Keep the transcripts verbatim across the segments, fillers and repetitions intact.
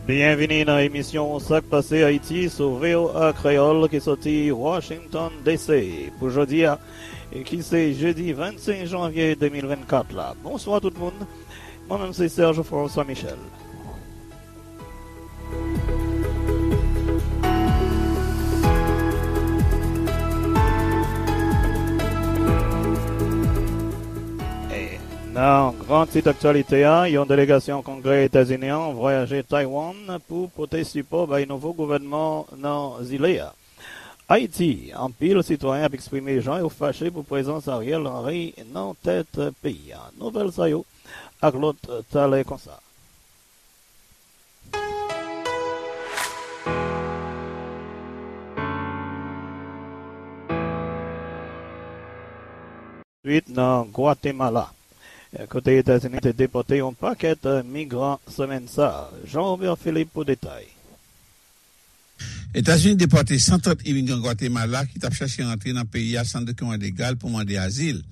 Byenvini nan emisyon Sa k Pase Ayiti sou V O A Kreyòl ki soti Washington D C pou jodi a, ki se jedi vennsenk janvye de mil vennkat la. Bonswa tout moun. Mwen menm se Serge François Michel. E nan gran tit aktyalite a, yon delegasyon Kongrè Etazini an vwayaje Taiwan pou pote sipò bay nouvo gouvènman nan zile a. Ayiti, anpil sitwayen ap eksprime jan yo fache pou prezans Ariel Henry nan tèt peyi a. Nouvèl sa yo ak lòt talè konsa. Swit nan Gwatemala, kote Etazini te depòte yon pakèt migran semèn sa a. Jean Robert Philippe pou detay. Etazini depòte san trant imigran Gwatemala ki t ap chache rantre nan peyi a san dokiman legal pou mande azil.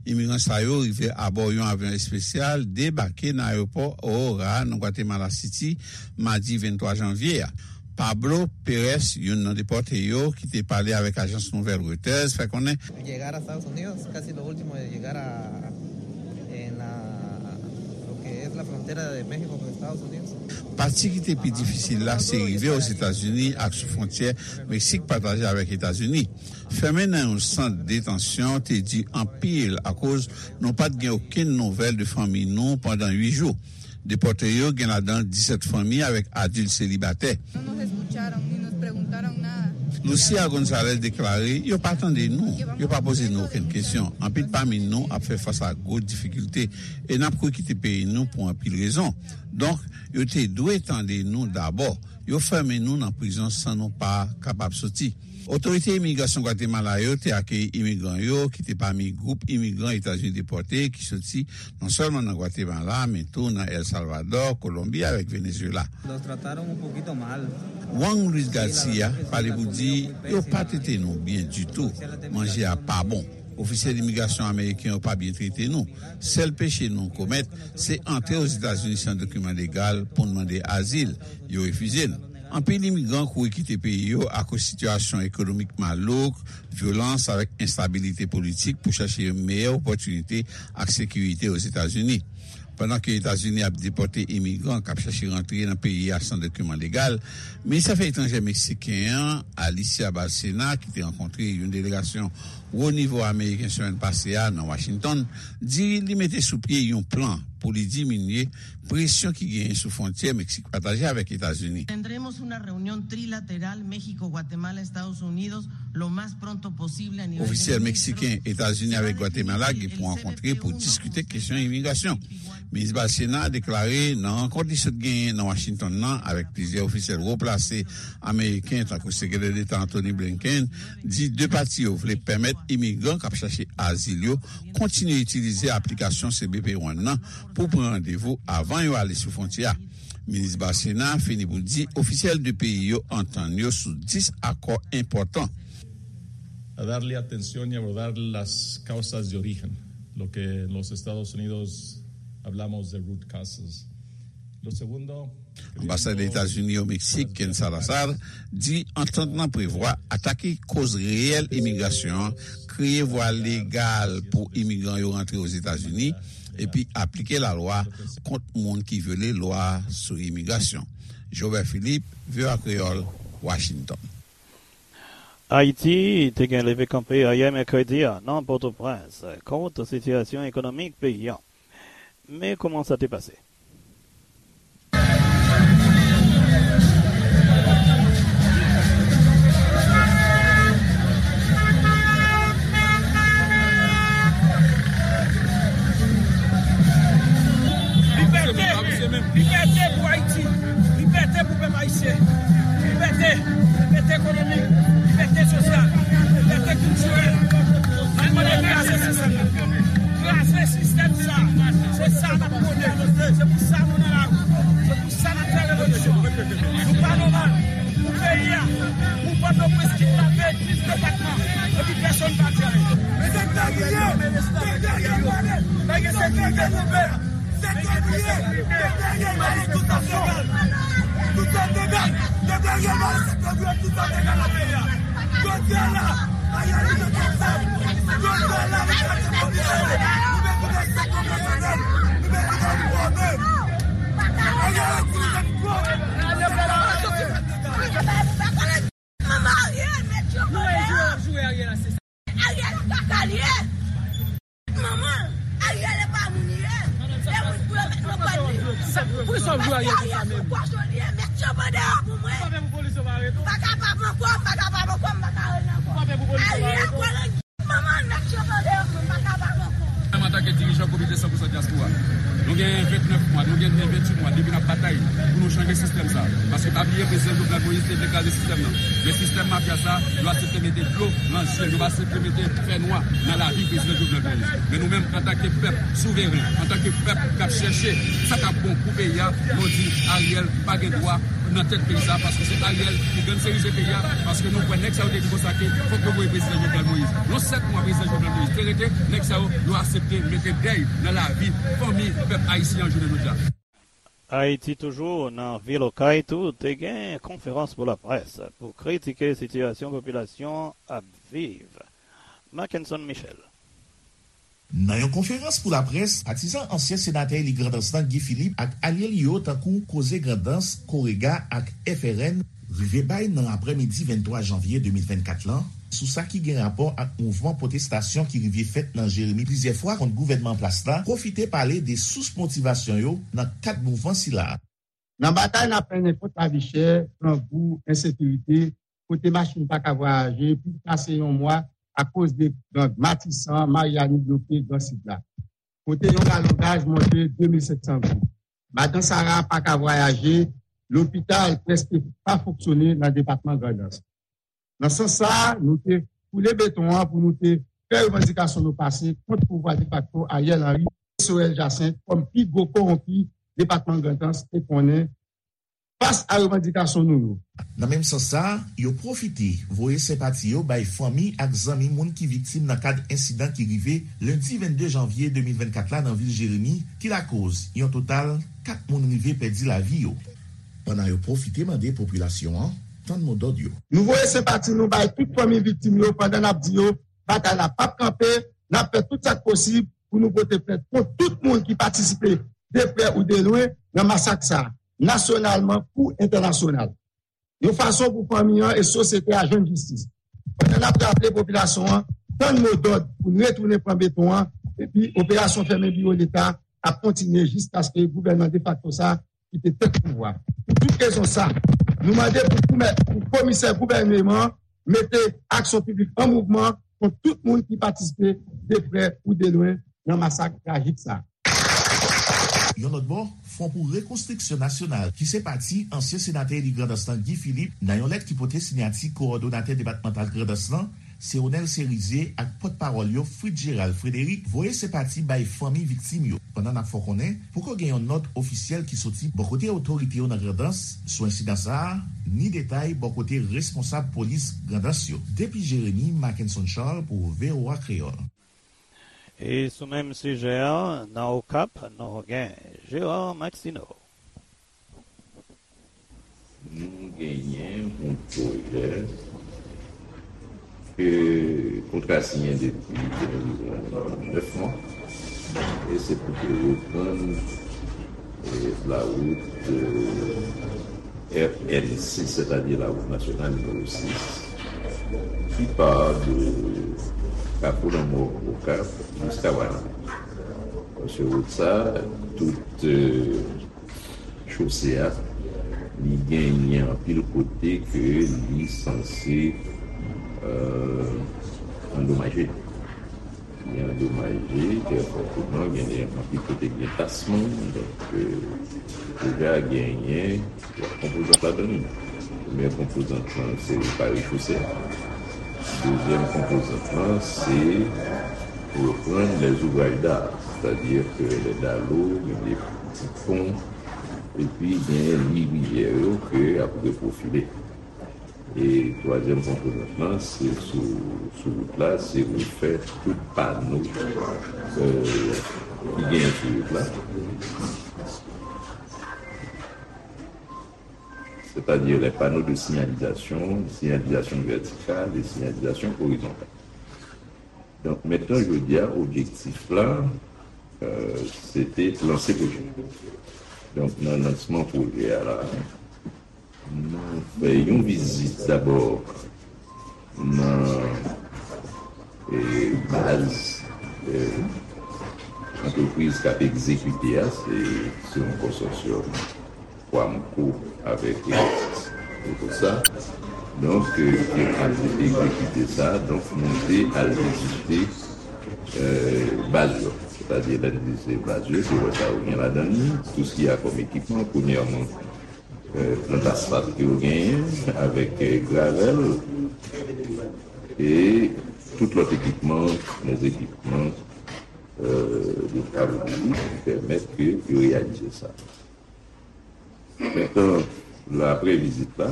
Imigran sa yo rive abò yon avyon espesyal, debake nan ayewopò Aurora nan Guatemala City, madi venntwa janvye a. Pablo Pérez, youn nan depòte yo, ki te pale avèk ajans nouvèl Reuters, fè konnen Llegar a Estados Unidos, casi lo último de llegar a, en la, lo que es la frontera de México con Estados Unidos. Pati ki te pi difisil la se rive Ozetazini ak sou fwontyè Meksik pataje avèk Etazini. Fèmen nan yon sant detansyon te di anpil akoz nou pa t gen okenn nouvèl de fanmi nou pandan uit jou. Depòte yo gen ladan disèt fanmi avèk adilt selibatè. No nos escucharon ni nos preguntaron nada. Lucia Gonzalez deklare, "Yo pa tande nou, yo pa poze nou okenn kesyon. Anpil pami nou ap fè fas a gwo difikilte e n ap kouri kite peyi nou pou anpil rezon. Donk, yo te dwe tande nou dabò. Yo fèmen nou nan prizon san nou pa kapab soti." Otorite imigrasyon Gwatemala yo te akeyi imigran yo, ki te pami gwoup imigran Etazini depòte ki soti non sèlman nan Gwatemala, men tou nan El Salvador, Kolonbi avèk Venezuela. Los trataron un poquito mal. Juan Luis Garcia pale pou di, "Yo pa trete nou byen ditou. Manje a pa bon. Ofisyèl imigrasyon ameriken yo pa byen trete nou. Sèl peche nou komèt, se antre Ozetazini san dokiman legal pou n mande azil. Yo refize n." Anpil imigran kouri kite peyi yo akoz sitiyasyon ekonomik malouk, vyolans avèk enstabilite politik pou chache yon meyè opòtinite ak sekirite Ozetazini. Pandan ke Etazini ap depòte imigran k ap chache rantre nan peyi a san dokiman legal, minis afè etranjè meksiken an, Alicia Bárcena, ki te rankontre yon delegasyon wo nivo ameriken semèn pase a nan Washington, di li mete sou pye yon plan pou li diminye presyon ki genyen sou fwontyè Meksik pataje avèk Etazini. Tendremos una reunión trilateral México, Guatemala, Estados Unidos lo más pronto posible a nivel de... Ofisyèl meksiken, Etazini avèk Gwatemala gen pou rankontre pou diskite kesyon imigrasyon. Minis Bárcena deklare nan rankont li sot genyen nan Washington nan avèk plizyè ofisyèl wo plase ameriken, tankou Sekretè Deta Antony Blinken, di de pati yo vle pèmèt imigran k ap chache azil yo kontinye itilize aplikasyon C B P One nan pou pran randevou avan yo ale sou fwontyè a. Minis Bárcena fini pou di ofisyèl de peyi yo antann yo sou dis akò enpòtan. A darle atención y abordar las causas de origen, lo que en los Estados Unidos hablamos de root causes. Lo segundo, Anbasadè Etazini o Meksik, Ken Salazar, di antant lan prevwa atake koz reyèl imigrasyon an, kreye vwa legal pou imigran yo rantre Ozetazini, epi aplike lalwa kont moun ki vyole lwa sou imigrasyon. Jobert Philippe, V O A Kreyòl, Washington. Ayiti te gen leve kanpe ayè mèkredi a nan Pòtoprens kont sitiyasyon ekonomik peyi a. Men kòman sa te pase? Libète! Libète pou Ayiti! Libète pou pèp ayisyen! Libète! Libète ekonomik! Libète sosyal! Libète kiltirèl! N ap mande kraze sistèm nan! Kraze sistèm sa! Se sa n ap mande! Se pou sa nou nan lari! Se pou sa n ap fè revolisyon! Nou pa nòmal! Pou peyi a, pou Pòtoprens kidnape dis depatman, epi pèsonn pa di anyen. Mesye, ta kriye, ta kriye, ta kriye, ta kriye, ta kriye, ta kriye, ta kriye, Manman Ariel, mèt yo vòlè. Ariel, kaka li ye. Manman, Ariel e pa moun li ye. E moun pou yo met nan kòd li. Poukisa w jwe Ariel konsa menm? Pòch li ye, mèt yo bande yo pou mwen. Pa pè pou polis yo pa arete w? M pa kapab ankò, m pa kapab ankò, m pa ka rele ankò. Pa pè pou polis yo pa arete w? Ariel, manman, mèt yo bande yo pou mwen, m pa kapab ankò. Menm antanke dirijan Komite san pou san Dyaspora, nou gen vennèf mwa, nou gen venntuit mwa depi n ap batay pou nou chanje sistèm sa. Paske pa bliye, Prezidan Jovenel Moïse te vle kraze sistèm nan. Men sistèm mafya sa, yo aksepte mete dlo nan je l, yo aksepte mete fènwa nan lavi Prezidan Jovenel Moïse. Men nou menm, antanke pèp souveren, antanke pèp k ap chèche sa k ap bon pou peyi a, nou di Ariel pa gen dwa nan tèt peyi sa, paske se Ariel ki gangstèrize peyi a, paske nou kwè nèg sa yo te di konsa ke fòk yo voye Prezidan Jovenel Moïse. Nan sèt mwa Prezidan Jovenel Moïse te rete, nèg sa yo, yo aksepte mete dèy nan lavi fanmi pèp ayisyen an jounen jodi a. Ayiti toujou, nan vil Okay tou, te gen konferans pou laprès pou kritike sitiyasyon popilasyon ap viv. Mackenson Michel. Nan yon konferans pou laprès, patizan ansyen senatè eli Grandans lan, Guy Philippe, ak alye li yo, tankou Koze Grandans, Korega ak F R N, rive bay nan aprèmidi venntwa janvye de mil vennkat lan, sou sa ki gen rapò ak mouvman pwotestasyon ki rive fèt nan Jeremi plizyè fwa kont gouvènman an plas la, pwofite pale de sous motivasyon yo nan kad mouvman sila. Nan batay n ap mennen kont lavi chè, grangou, ensekirite, kote machin pa ka vwayaje, plis pase yon mwa akoz de gang Matisan, Maryani bloke Gran Sid la, kote yon galon gaz monte de mil senk san goud. Madan Sara pa ka vwayaje, lopital prèske pa fonksyone nan depatman Grandans. Nan sans sa a, nou te foule beton an pou nou te fè revandikasyon nou pase kont pouvwa defakto Ariel Henry e Sorel Jacinthe kòm pi gwo kowonpi depatman Grandans te konnen fas a revandikasyon nou yo. Nan menm sans sa a, yo pwofite voye senpati yo bay fanmi ak zanmi moun ki viktim nan kad ensidan ki rive lendi vennde janvye de mil vennkat la nan vil Jeremi, ki lakoz yon total kat moun rive pèdi lavi yo. Pandan yo pwofite mande popilasyon an tann mo dòd yo. Nou voye senpati nou bay tout fanmi viktim yo pandan n ap di yo batay la p ap kanpe, n ap fè tout sa k posib pou nou pote plent kont tout moun ki patisipe de prè ou de lwen nan masak sa a, nasyonalman kou entènasyonal. Yon fason pou fanmi an e sosyete a jwenn jistis. Pandan n ap raple popilasyon an tann mo dòd pou n retounen pran beton an, epi operasyon fèmen biwo Leta ap kontinye jiskaske gouvènman defakto sa a kite tèt pouvwa. Pou tout rezon sa, nou mande pou koumè-, pou komisè gouvèneman an mete aksyon piblik an mouvman kont tout moun ki patisipe de prè ou de lwen nan masak trajik sa. Yon lòt bò, Fwon pou Rekonstriksyon Nasyonal, ki se pati ansyen senatè eli Grandans lan Guy Philippe, nan yon lèt ki pote siyati kowòdonatè depatmantal Grandans lan, Seonel Serizier, ak pòtpawòl yo Fritz Gérald Frédéric voye senpati bay fanmi viktim yo, pandan n ap fè w konnen poko gen yon nòt ofisyèl ki soti bò kote otorite yo nan Grandans sou ensidan sa a, ni detay bò kote responsab polis Grandans yo. Depi Jeremi, Mackenson Charles pou V O A Kreyòl. E sou menm sijè a, nan Okap, nou gen Gérard Maxineau. Nou genyen yon pwojè ke kontra siyen depi enviwon nèf mwa, e se pou te reprann, e, lawout, e, R N sis, sètadi lawout nasyonal nimewo sis, ki pa de Kafou Lanmò Okap jiska Wanament. Paske wout sa, tout, e, chose a, li genyen anpil kote ke li sanse, e, andomaje. Li andomaje, trè fòteman, genyen anpil kote gen tasman, donk, e, pwojè a genyen twa konpozant ladan li. Premyè konpozant lan, se repare chose a. Dezyèm konpozant lan, se reprann les ouvrages d'art, sètadi ke les dallots, gen de ti pon, epi gen li rivyè yo ke ap reprofile. E twazyèm konpozant lan, se sou, sou wout la, se refè tout pano, e, ki genyen sou wout la. c'est-à-dire les panneaux de signalisation, signalisation verticale et signalisation horizontale. Donk, mentnan, jodi a, objektif la, euh, se te lanse pwojè. Donk, nan lansman pwojè a la, nou fè yon vizit dabò nan, eh, baz, eh, antrepriz k ap egzekite a, se, se yon konsòsyòm Quamco avèk Electis. Se pou sa, donk, eh, ke al egzekite sa, donk, nou te al vizite, eh, baz yo. Sètadi, lè n di se baz yo, se wè sa yo gen ladan l, tout sa ki a kòm ekipman, premyèman, eh, plant asfalt ke yo genyen, avèk, eh, gravèl, e tout lòt ekipman, lèzekipman, eh, de travaux publics ki pèmèt ke yo reyalize sa. Mentnan, la, apre vizit la,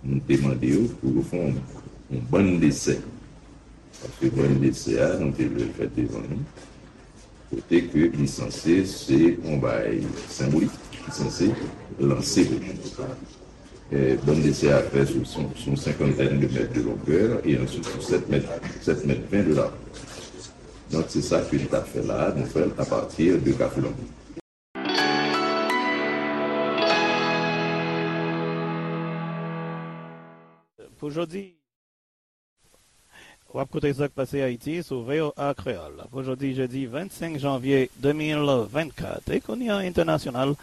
nou te mande yo pou yo fè yon, yon bann desè. Paske bann desè a, nou te vle l fèt devan nou. Kote ke li sanse se yon bagay senbolik, ki sanse lanse pwojè. Eh, bann desè a fè sou, sou, sou yon senkantèn de mèt de longè e answit sou sèt mèt, sèt mèt ven de largè. Donk, se sa ke n t ap fè la a, nou fè l apati de Kafou Lanmou. Pou jodi, w ap koute sa k pase Ayiti sou V O A Kreyòl. Pou jodi, jedi vennsenk janvye de mil vennkat, Ekouni Entènasyonal,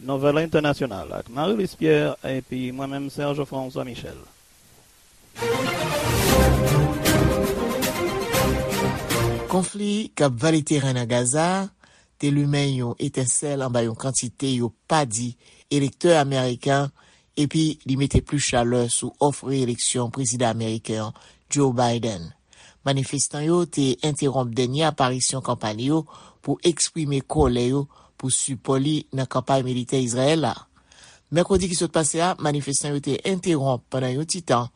Nouvèl Entènasyonal ak Marie Luce Pierre epi mwen menm, Serge François Michel. Konfli k ap vale teren nan Gaza a te limen yon etensèl anba yon kantite yo pa di elektè ameriken epi li mete plis chalè sou òf reyeleksyon prezidan ameriken an, Joe Biden. Manifestan yo te entewonp dènye aparisyon kanpay li yo pou eksprime kòlè yo pou sipò li nan kanpay militè Izrayèl la. Mèkredi ki sot pase a, manifestan yo te entewonp pandan yon ti tan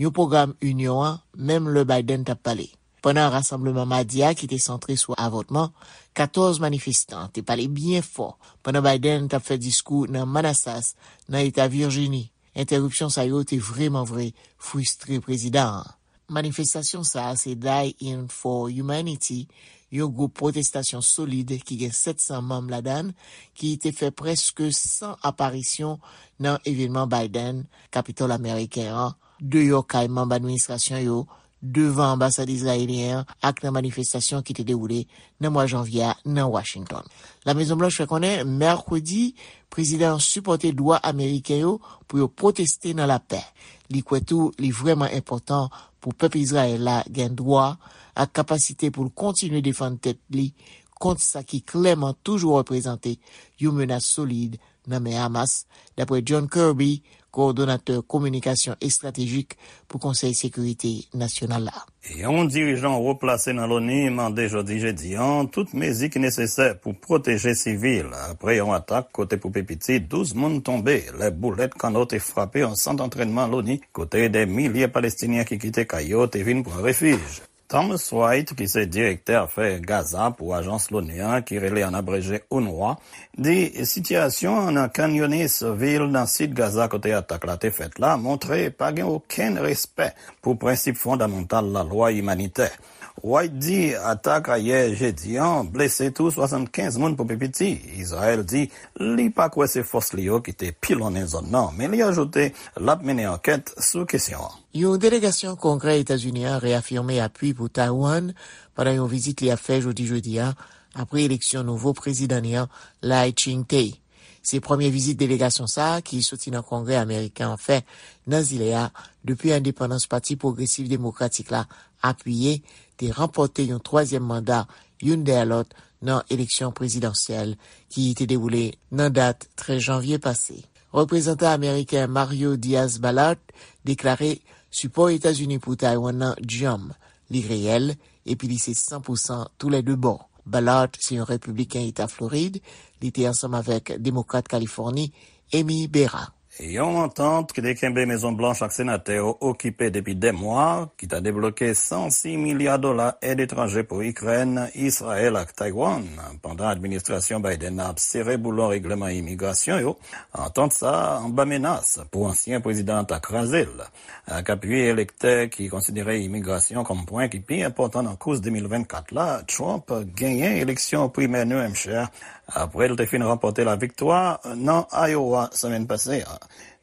yon pwogram inyon an, menm lè Biden t ap pale. Pandan rasanbleman madi a ki te santre sou avòtman, katòz manifestan te pale byen fò pandan Biden t ap fè diskou nan Manassas, nan eta Virjini. Entèripsyon sa yo te vrèman vre fristre prezidan an. Manifestasyon sa a se Die In for Humanity, yon gwoup pwotestasyon solid ki gen sèt san manm ladan l, ki te fè prèske san aparisyon nan evènman Biden, Kapitòl ameriken an, deyò kay manm administrasyon yo, devan anbasad izrayelyen an ak nan manifestasyon ki te dewoule nan mwa janvye a nan Washington. Lamezonblanch fè konnen mèkredi, prezidan an sipòte dwa ameriken yo pou yo pwoteste nan lapè. Li kwè tou li vrèman enpòtan pou pèp Izrayèl la gen dwa ak kapasite pou l kontinye defann tèt li kont sa ki klèman toujou reprezante yon menas solid nan men Hamas, dapre John Kirby, kowòdonatè kominikasyon estratejik pou Konsèy Sekirite Nasyonal la. Yon dirijan wo plase nan Loni mande jodi jedi an tout mezi ki nesesè pou pwoteje sivil apre yon atak kote pou pi piti douz moun tonbe lè boulèt kanno te frape yon sant antrènman Loni kote dè milye Palestinyen ki kite kay yo te vin pran refij. Thomas White, ki se direktè afè Gaza pou ajans Loni an ki rele an abreje UNRWA, di sitiyasyon an nan Khan Younis, vil nan sid Gaza kote atak la te fèt la, montre pa gen okenn respè pou prensip fondamantal lalwa imanitè. White di atak ayè jedi an blese tou swasannkenz moun pou pi piti. Izrayèl di li pa kwè se fòs li yo ki te pilonnen zòn nan, men li ajoute l ap mennen ankèt sou kesyon an. Yon delegasyon Kongrè Etazini an reyafime apui pou Taiwan pandan yon vizit li ap fè jodi jedi a, apre eleksyon nouvo prezidan li an, Lai Ching-te. Se premye vizit delegasyon sa a ki soti nan Kongrè ameriken an fè nan zile a depi endepandans Pati Pwogresis Demokratik la apiye te ranpòte yon twazyèm manda youn dèyè lòt nan eleksyon prezidansyèl ki te dewoule nan dat trèz janvye pase. Reprezantan ameriken Mario Diaz-Balart deklare sipò Etazini pou Taiwan nan djanm, li reyèl, epi li se san pou san toulède bò. Balart se yon repibliken Eta Florid, li te ansanm avèk Demokrat Kalifòni, Amy Barra. Yon antant ki te kenbe Mezon Blanch ak senatè yo okipe depi dè mwa, ki ta debloke san sis milya dola èd etranje pou Ikrèn, Izrayèl ak Taiwan, pandan administrasyon Biden nan ap sere boulon règleman imigrasyon yo, antant sa a anba menas pou ansyen prezidan an ta kraze l. Ak api elektè ki konsidere imigrasyon kòm pwen ki pi enpòtan nan kous de mil vennkat la, Trump genyen eleksyon primè New Hampshire apre l te fin ranpòte laviktwa nan Iowa semèn pase a.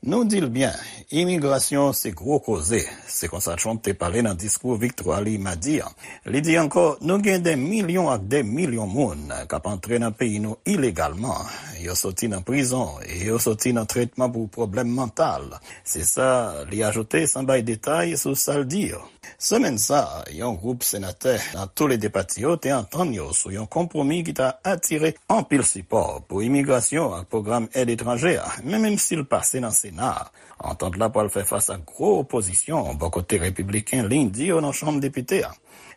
Nou di l byen, imigrasyon se gwo koze. Se konsa Trump te pale nan diskou viktwa li madi a. Li di ankò, nou gen de milyon ak de milyon moun k ap antre nan peyi nou ilegalman. Yo soti nan prizon e yo soti nan tretman pou pwoblèm mantal. Se sa li ajoute san bay detay sou sa l di yo. Semèn sa a, yon gwoup senatè nan tou le de pati yo te antann yo sou yon konpwomi ki ta atire anpil sipò pou imigrasyon ak pwogram èd etranje a, men menm si l pase nan Sena a, antant la pral fè fas ak gwo opozisyon bò kote repibliken li di yo nan Chanm Depite a.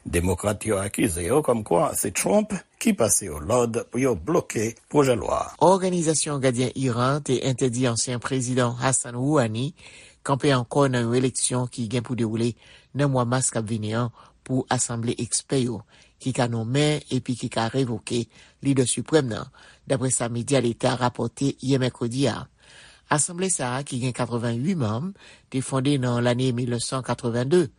Demokrat yo akize yo kòmkwa se Trump ki pase yo lòd pou yo bloke pwojè lwa a. Òganizasyon Gadyen Iran te entèdi ansyen prezidan Hassan Rouhani kanpe ankò nan yon eleksyon ki gen pou dewoule nan mwa mas k ap vini an pou asanble ekspè yo ki ka nonmen epi ki ka revoke lidè siprèm nan, dapre sa medya leta rapòte yè mèkredi a. Asanble sa a, ki gen katreventuit manm, te fonde nan lane mil nèf san katrevenndde.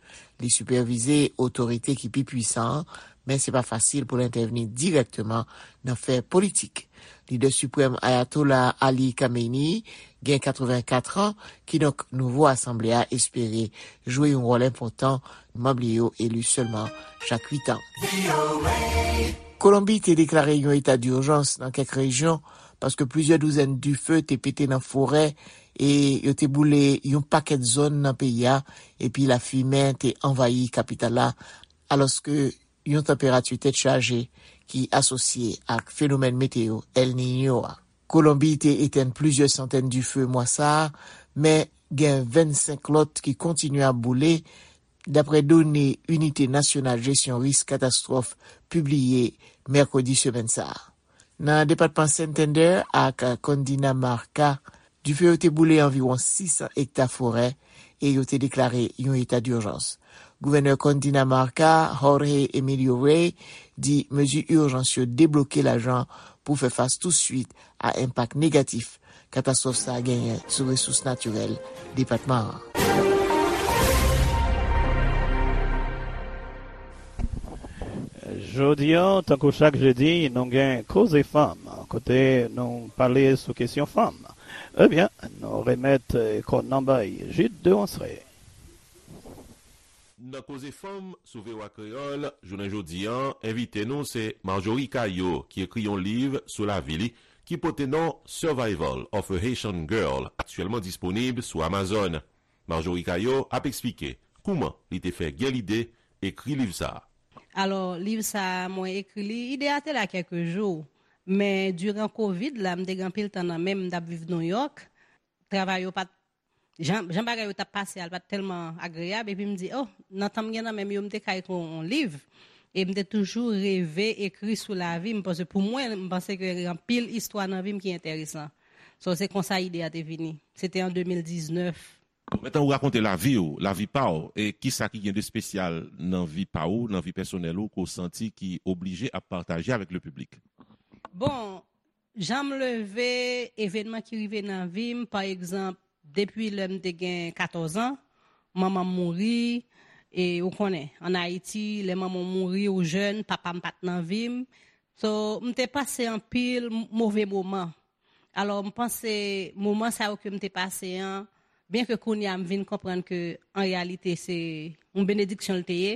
Li sipèvize otorite ki pi pwisan an, men se pa fasil pou l entèvni dirèkteman nan fè politik. Lidè siprèm Ayatollah Ali Khamenei gen katrevenkat an, kidonk nouvo asanble a espere jwe yon wòl enpòtan, manm li yo eli sèlman chak uit an. Kolonbi te deklare yon eta dijans nan kèk rejyon paske plizyè douzèn dife te pete nan forè e yo te boule yon pakèt zòn nan peyi a, epi lafimen te anvayi kapital la, alòske yon tanperati tèt chaje ki asosye ak fenomèn meteo El Niño a. Kolonbi te etenn plizyè santèn dife mwa sa a, men gen vennsenk lòt ki kontinye ap boule, dapre done Inite Nasyonal Jesyon Risk Katastwòf pibliye mèkredi semèn sa a. Nan depatman Santander ak Cundinamarca, dife yo te boule anviwon sis san ekta forè e yo te deklare yon eta dijans. Gouvènè Cundinamarca, Jorge Emilio Rey, di mezi ijans yo debloke lajan pou fè fas touswit a enpak negatif katastwòf sa a genyen sou resous natirèl depatman an. Jodi a, tankou chak jedi, nou gen Koze Fanm, kote nou pale sou kesyon fanm. Ebyen, nou remèt, eh, kòn nan bay Jude Deronceray. Nan Koze Fanm sou V O A Kreyòl, jounen jodi a, envite nou se Marjorie Caillot, ki ekri yon liv sou lavi li, ki pote non Survival of a Haitian Girl, aktyèlman disponib sou Amazon. Marjorie Caillot ap eksplike kouman li te fè gen lide ekri liv sa a. Alò, liv sa a, mwen ekri li, ide a te la kèk jou, men diran kovid la, m te gen anpil tan nan men m, m t ap viv Nouyòk. Travay yo pa t, jan, jan bagay yo t ap pase a, l pa t tèlman agreyab, epi m di, oh, nan tan m gen nan men m yo, m te ka ekri yon, yon liv. E m te toujou reve ekri sou lavi m, paske pou mwen, m panse ke gen anpil istwa nan vi m ki enteresan. So, se konsa ide a te vini. Se te an de mil diznèf. Bon, mentnan ou rakonte lavi w, lavi pa w, e kisa ki gen de espesyal nan vi pa w, nan vi pèsonèl ou, ke w santi ki oblije ap pataje avèk le piblik? Bon, jan m leve, evènman ki rive nan vi m, pa egzanp, depi lè m te gen katòz an, manman m mouri, e ou konnen, ann Ayiti, lè manman w mouri, ou jèn, papa m pa t nan vi m. So, m te pase anpil m-, move moman. Alò, m panse moman sa yo ke m te pase an, byen ke kounye a m vin konprann ke an reyalite se yon benediksyon l te ye,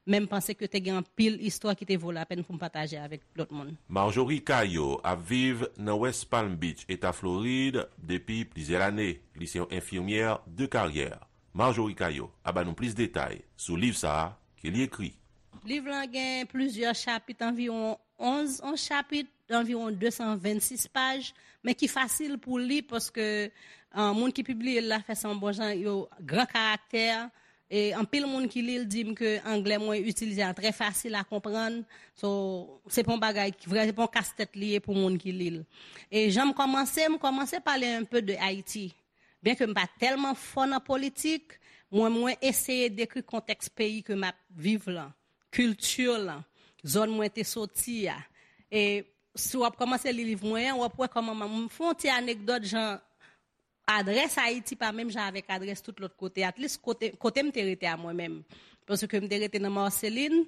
men m panse ke te gen anpil istwa ki te vo lapèn pou m pataje avèk lòt moun. Marjorie Caillot ap viv nan West Palm Beach, Eta Florid, depi plizyè lane. Li se yon enfimyè de karyè. Marjorie Caillot ap ba nou plis detay sou liv sa a ke li ekri. Liv lan gen plizyè chapit, anviwon onz, onz chapit, anviwon de san vennsis paj, men ki fasil pou li paske, ah, moun ki pibliye l la fè sa yon bon jan, yo gran karaktè, e anpil moun ki li l di m ke anglè mwen itilize a trè fasil a konprann. So, se pa yon bagay ki vrè, se pa yon kastèt li ye pou moun ki li l. E jan m kòmanse, m kòmanse pale un peu de Ayiti. Byenke m pa tèlman fò nan politik, mwen, mwen eseye dekri kontèks peyi ke m ap viv lan, kilti lan, zòn mwen te soti a. E si w ap kòmanse li liv mwen an, w ap wè kòman m, m fè yon ti anekdòt jan adrès Ayiti pa menm jan avèk adrès tout lòt kote. At least kote, kote m te rete a mwen menm. Paske m te rete nan Marceline,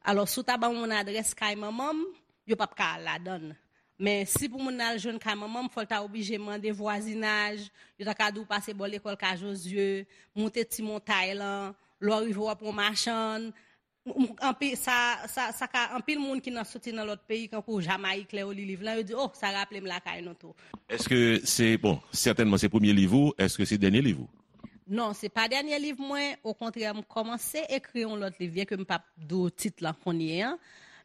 alò si w ta ban yon moun adrès kay manman m, yo p ap ka al ladan l. Men si pou moun nan al jwenn kay manman m, fò l ta oblije mande vwazinaj, yo ta ka di w pase bò lekòl Ka Jozye, moute ti montay lan, lè w rive w ap yon machann. M- m- Anpi, sa, sa, sa ka anpil moun ki nan soti nan lòt peyi, kankou Jamayik, lè yo li liv lan, yo di, oh, sa raple m lakay nou tou. Èske se, bon, sètènman se premye liv ou, èske se dènye liv ou? Non, se pa dènye liv mwen, okontrè, m kòmanse ekri yon lòt liv, byenke m p ap di w tit lan kounye a.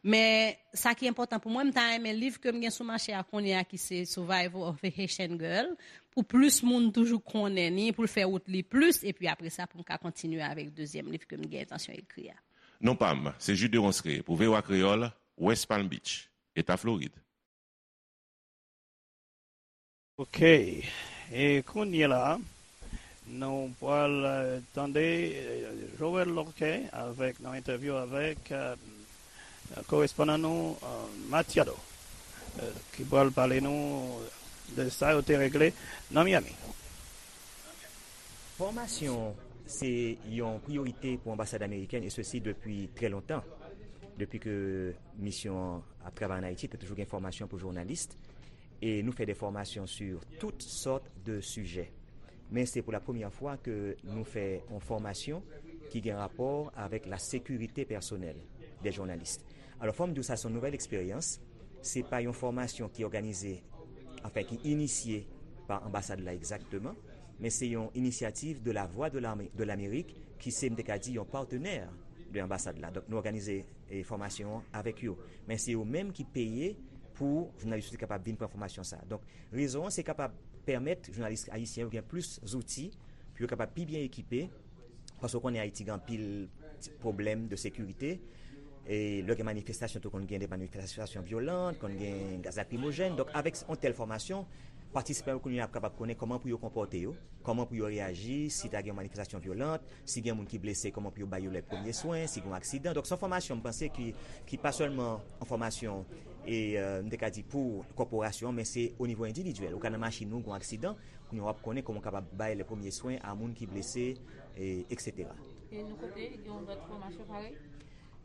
Men sa ki enpòtan pou mwen, m ta renmen liv ke m gen sou mache a kounye a, ki se Survival of a Haitian Girl, pou plis moun toujou konnen ni, pou l fè wout li plis, epi apre sa, pou m ka kontinye avèk dezyèm liv ke m gen entansyon ekri a. Non pa m, se Jude Ronsre pou V O A Kreyòl, West Palm Beach, Eta Florid. Ok. E kounye la, nou pral eh, tande eh, Joël Lorquet avèk nan entèvyou avèk eh, korespondan nou eh, Matiado, eh, ki pral pale nou de sa yo te regle nan Miami. Fòmasyon se yon priyorite pou anbasad amerikèn, e sesi depi trè lontan. Depi ke misyon an ap travay ann Ayiti, te toujou gen fòmasyon pou jounalis. E nou fè de fòmasyon sou tout sòt de sijè. Men se pou la premyè fwa ke nou fè yon fòmasyon ki gen rapò avèk la sekirite pèsonèl de jounalis. Alò, fò m di w sa se yon nouvèl eksperyans. Se pa yon fòmasyon ki òganize, anfen, ki inisye pa anbasad la egzakteman, men se yon inisyativ de la Voix de l'Amérique, ki se, m te ka di, yon patenè de anbasad la. Donk, nou òganize eh, fòmasyon an avèk yo. Men se yo menm ki peye pou jounalis yo te kapab vin pran fòmasyon sa a. Donk, rezon an se kapab pèmèt jounalis ayisyen yo gen plis zouti pou yo kapab pi byen ekipe, paske w konnen Ayiti gen anpil pwoblèm de sekirite. E lè gen manifestasyon tou konn gen de manifestasyon vyolan, konn gen gaz lakrimojèn. Donk avèk yon tèl fòmasyon, patisipan yo kounye a ap kapab konnen kòman pou yo konpòte yo, kòman pou yo reyaji si ta gen yon manifestasyon vyolan, si gen moun ki blese, kòman pou yo ba yo lè premye swen, si gen yon aksidan. Donk se yon fòmasyon m panse ki, ki pa sèlman yon fòmasyon e euh, m te ka di pou kòporasyon, men se o nivo endividyèl. Ou ka nan machin ou, gen yon aksidan, kounye a w ap konnen kòman w kapab bay lè premye swen a moun ki blese, e, eksetera. E nou kote gen yon lòt fòmasyon parèy?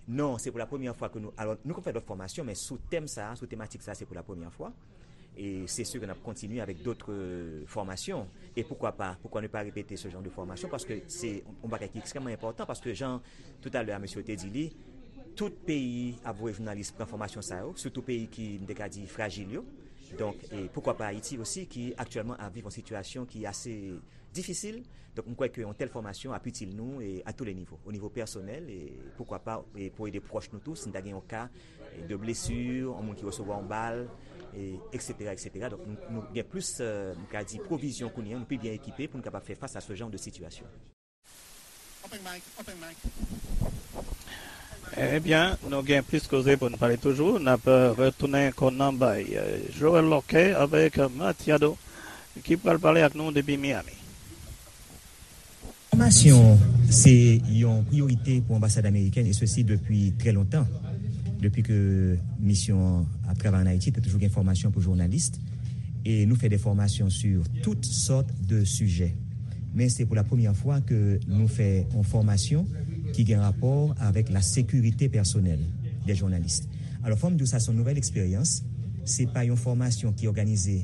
Non, se pou la premyè fwa ke nou, alò nou konn fè lòt fòmasyon, men sou tèm sa, sou tematik sa, se pou la premyè fwa. E se si ke n ap kontinye avèk dòt fòmasyon. E poukwa pa, poukwa ne pa repete se jan de fòmasyon, paske se yon bagay ki ekstrèmman enpòtan, paske jan toutalè a mesye te di li, tout peyi ap voye jounalis pran fòmasyon sa yo, sitou peyi ki, m te ka di, frajil yo. Donk, e poukwa pa Ayiti osi, ki aktyèlman ap viv yon sitiyasyon ki ase difisil. Donk, m kwè ke yon tèl fòmasyon ap itil nou e a tou le nivo, o nivo pèsonèl, e poukwa pa e pou ede pwòch nou tou, si n ta gen yon ka de blesi, yon moun ki resevwa yon bal, e, eksetera, eksetera. Donk, nou, nou gen plis, euh, m ka di, pwovizyon kounye a, nou pi byen ekipe pou nou kapab fè fas a se jan de sitiyasyon. Ebyen, nou gen plis koze pou n pale toujou. N ap retounen kò nan bay Joel Lòkè avèk Matiado ki pral pale ak nou depi Miami. Fòmasyon se yon priyorite pou anbasad amerikèn, e sesi depi trè lontan. Depi ke misyon an ap travay ann Ayiti, te toujou gen fòmasyon pou jounalis. E nou fè de fòmasyon sou tout sòt de sijè. Men se pou la premyè fwa ke nou fè yon fòmasyon ki gen rapò avèk la sekirite pèsonèl de jounalis. Alò, fò m di w sa se yon nouvèl eksperyans. Se pa yon fòmasyon ki òganize,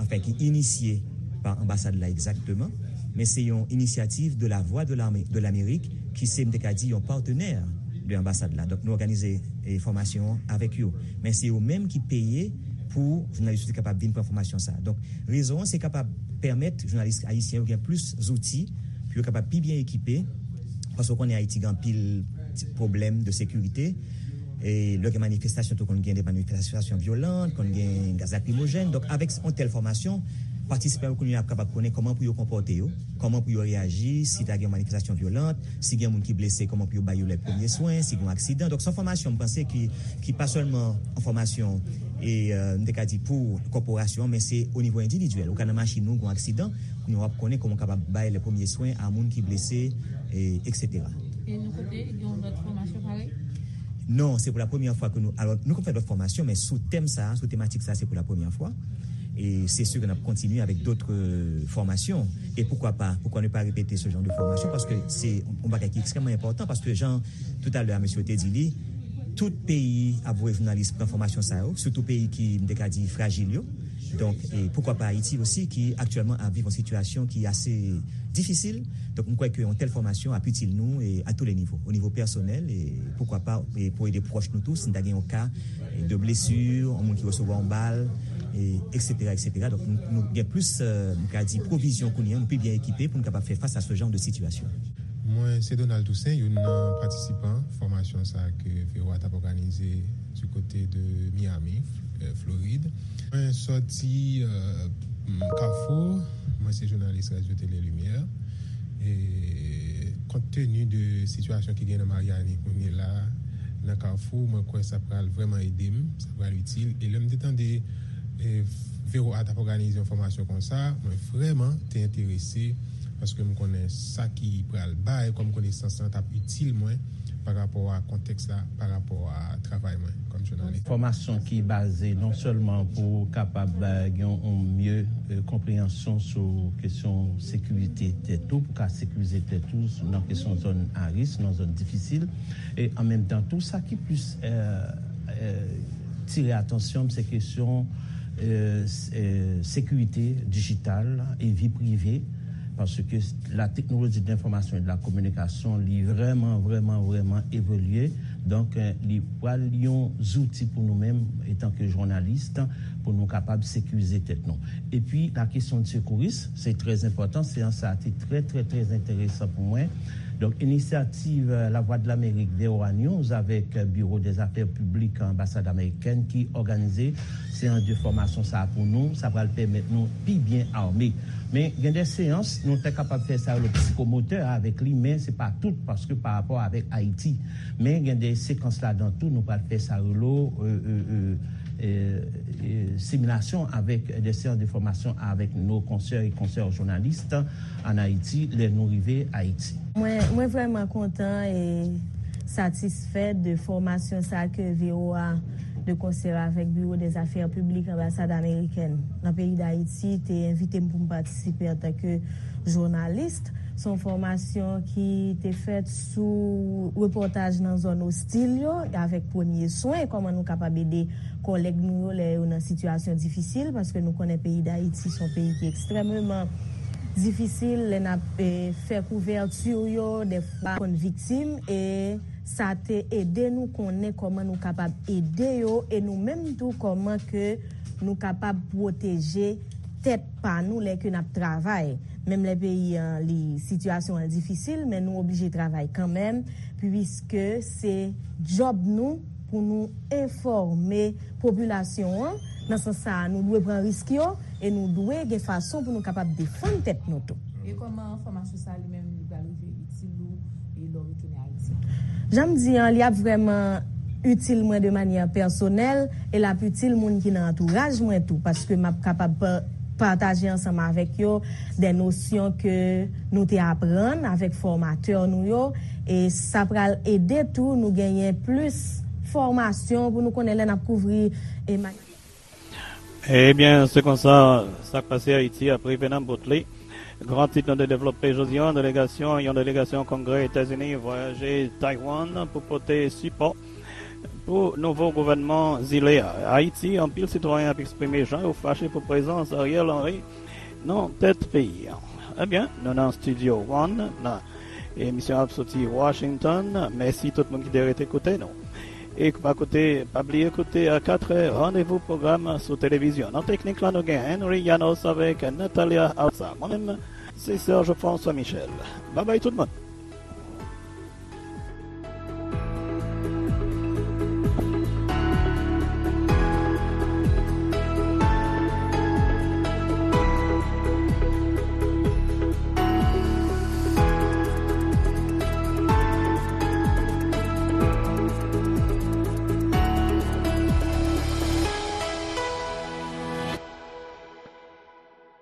anfen, ki inisye pa anbasad la egzakteman, men se yon inisyativ de la Voix de l'Amérique, ki se, m te ka di, yon patenè de anbasad la. Donk, nou òganize e, fòmasyon an avèk yo. Men se yo menm ki peye pou jounalis yo te kapab vin pran fòmasyon sa a. Donk, rezon an se kapab pèmèt jounalis ayisyen yo gen plis zouti pou yo kapab pi byen ekipe, paske w konnen Ayiti gen anpil pwoblèm de sekirite. E lè gen manifestasyon tou konn gen de manifestasyon vyolan, konn gen gaz lakrimojèn. Donk avèk yon tèl fòmasyon, patisipan yo kounye a ap kapab konnen kòman pou yo konpòte yo, kòman pou yo reyaji si ta gen yon manifestasyon vyolan, si gen moun ki blese, kòman pou yo ba yo lè premye swen, si gen yon aksidan. Donk se yon fòmasyon m panse ki, ki pa sèlman yon fòmasyon E, euh, m te ka di pou kòporasyon an, men se o nivo endividyèl. Ou ka nan machin ou, gen yon aksidan, kounye a w ap konnen kòman w kapab bay lè premye swen a moun ki blese, e, etsetera. E nou kote gen yon lòt fòmasyon parèy? Non, se pou la premyè fwa ke nou, alò, nou konn fè dòt fòmasyon, men sou tèm sa, sou tematik sa, se pou la premyè fwa. E se si ke n ap kontinye avèk dòt, euh, fòmasyon. E poukwa pa, poukwa ne pa repete se jan de fòmasyon? Paske se yon bagay ki ekstrèmman enpòtan, paske jan toutalè a mesye te di li, tout peyi ap voye jounalis pran fòmasyon sa yo, sitou peyi ki, m te ka di, frajil yo. Donk, e poukwa pa Ayiti osi, ki aktyèlman ap viv yon sitiyasyon ki ase difisil. Donk, m kwè ke yon tèl fòmasyon ap itil nou, e, a tou le nivo. O nivo pèsonèl, e poukwa pa, e, pou ede pwòch nou tou, si n ta gen yon ka, e, de blesi, yon moun ki resevwa yon bal, e, etsetera, etsetera. Donk, nou, nou gen plis, e, m ka di, pwovizyon kounye a, nou pi byen ekipe pou nou kapab fè fas a se jan de sitiyasyon. Mwen, se Donald Toussaint, youn nan patisipan fòmasyon sa a ke V O A t ap òganize du côté de Miami, euh, Florid. Mwen sòti, euh, Kafou, mwen se jounalis Radyo Tele Limyè. E kont teni de sitiyasyon ki gen nan Maryani kounye la, nan Kafou, mwen kwè sa pral vrèman ede m, sa pral itil. E lè m te tande, e, V O A t ap òganize yon fòmasyon konsa, mwen vrèman te enterese, paske m konnen sa ki pral bay kòm konesans lan t ap itil mwen pa rapò a kontèks la, pa rapò a travay mwen kòm jounalis. Fòmasyon ki baze non sèlman pou kapab, eh, gen yon mye, eh, konpreyansyon sou kesyon sekirite tèt ou, pou ka sekirize tèt ou nan kesyon zòn a risk, nan zòn difisil. E an menm tan tou, sa ki plis, eh, eh, tire atansyon m, se kesyon, eh, s-, eh, sekirite dijital e vi prive, paske la teknoloji de lenfòmasyon e de la kominikasyon, li vrèman, vrèman, vrèman evolye. Donk, eh, li pral yon zouti pou nou menm, etanke jounalis, pou nou kapab sekirize tèt nou. Epi, la kesyon de sekouris, se trè enpòtan. Seyans sa a te trè, trè, trè enteresan pou mwen. Donk, inisyativ, eh, Lavwadlamerik, V O A News, avèk, eh, Biwo dèzafè piblik anbasad amerikèn ki òganize seyans de fòmasyon sa a pou nou, sa pral pèmèt nou pi byen ame. Men gen de seyans, nou te kapab fè sa yo le psikomotè avèk li, men se pa tout, paske pa rapò avèk Ayiti. Men gen de sekans ladan tou, nou pral fè sa yo le, eh, eh, eh, eh, eh, similasyon avèk de seyans de fòmasyon avèk nos consoeurs et consoeurs journalistes en Haïti, lè nou rive Ayiti. Mwen, mwen vrèman kontan e satisfè de fòmasyon sa ke V O A de konsè avèk Biwo dèzafè piblik anbasad amerikèn nan peyi Dayiti te envite m pou m patisipe antanke jounalis. Se yon fòmasyon ki te fèt sou repòtaj nan zòn ostil yo, avèk premye swen, kòman nou kapab ede kòlèg nou yo lè yo nan sitiyasyon difisil, paske nou konnen peyi Dayiti se yon peyi ki ekstrèmeman difisil, lè n ap, eh, fè kouvèti yo, dèfwa konn viktim, e sa te ede nou konnen kòman nou kapab ede yo, e nou menm tou kòman ke nou kapab pwoteje tèt pa nou lè ke n ap travay. Menm lè peyi an, li, sitiyasyon an difisil, men nou oblije travay kanmenm, piske se djòb nou pou nou enfòme popilasyon an. Nan sans sa a, nou dwe pran risk yo e nou dwe gen fason pou nou kapab defann tèt nou tou. E kòman fòmasyon sa a li menm li pral rive itil ou e lè w retounen Ayiti? Jan m di an, li ap vrèman itil mwen de manyè pèsonèl e l ap itil moun ki nan antouraj mwen tou, paske m ap kapab pa-, pataje ansanm avèk yo de nosyon ke nou te aprann avèk fòmatè nou yo, e sa pral ede tou nou genyen plis fòmasyon pou nou konnen lè n ap kouvri e ma- Ebyen, se konsa, sa k pase Ayiti ap rive nan bout li. Gran tit nou te devlope jodi a, delegasyon, yon delegasyon Kongrè Etazini vwayaje Taiwan pou pote sipò pou nouvo gouvènman zile a. Ayiti, anpil sitwayen ap eksprime jan yo fache pou prezans Ariel Henry nan tèt peyi a. Ebyen, nou nan Studio One, nan emisyon ap soti Washington. Mèsi tout moun ki te rete koute nou. E pa koute, pa bliye koute a katrè, randevou pwogram sou televizyon. Nan teknik la, nou gen Henry Llanos avèk Natalia Alsa. Mwen menm, se Serge François Michel. Babay tout moun.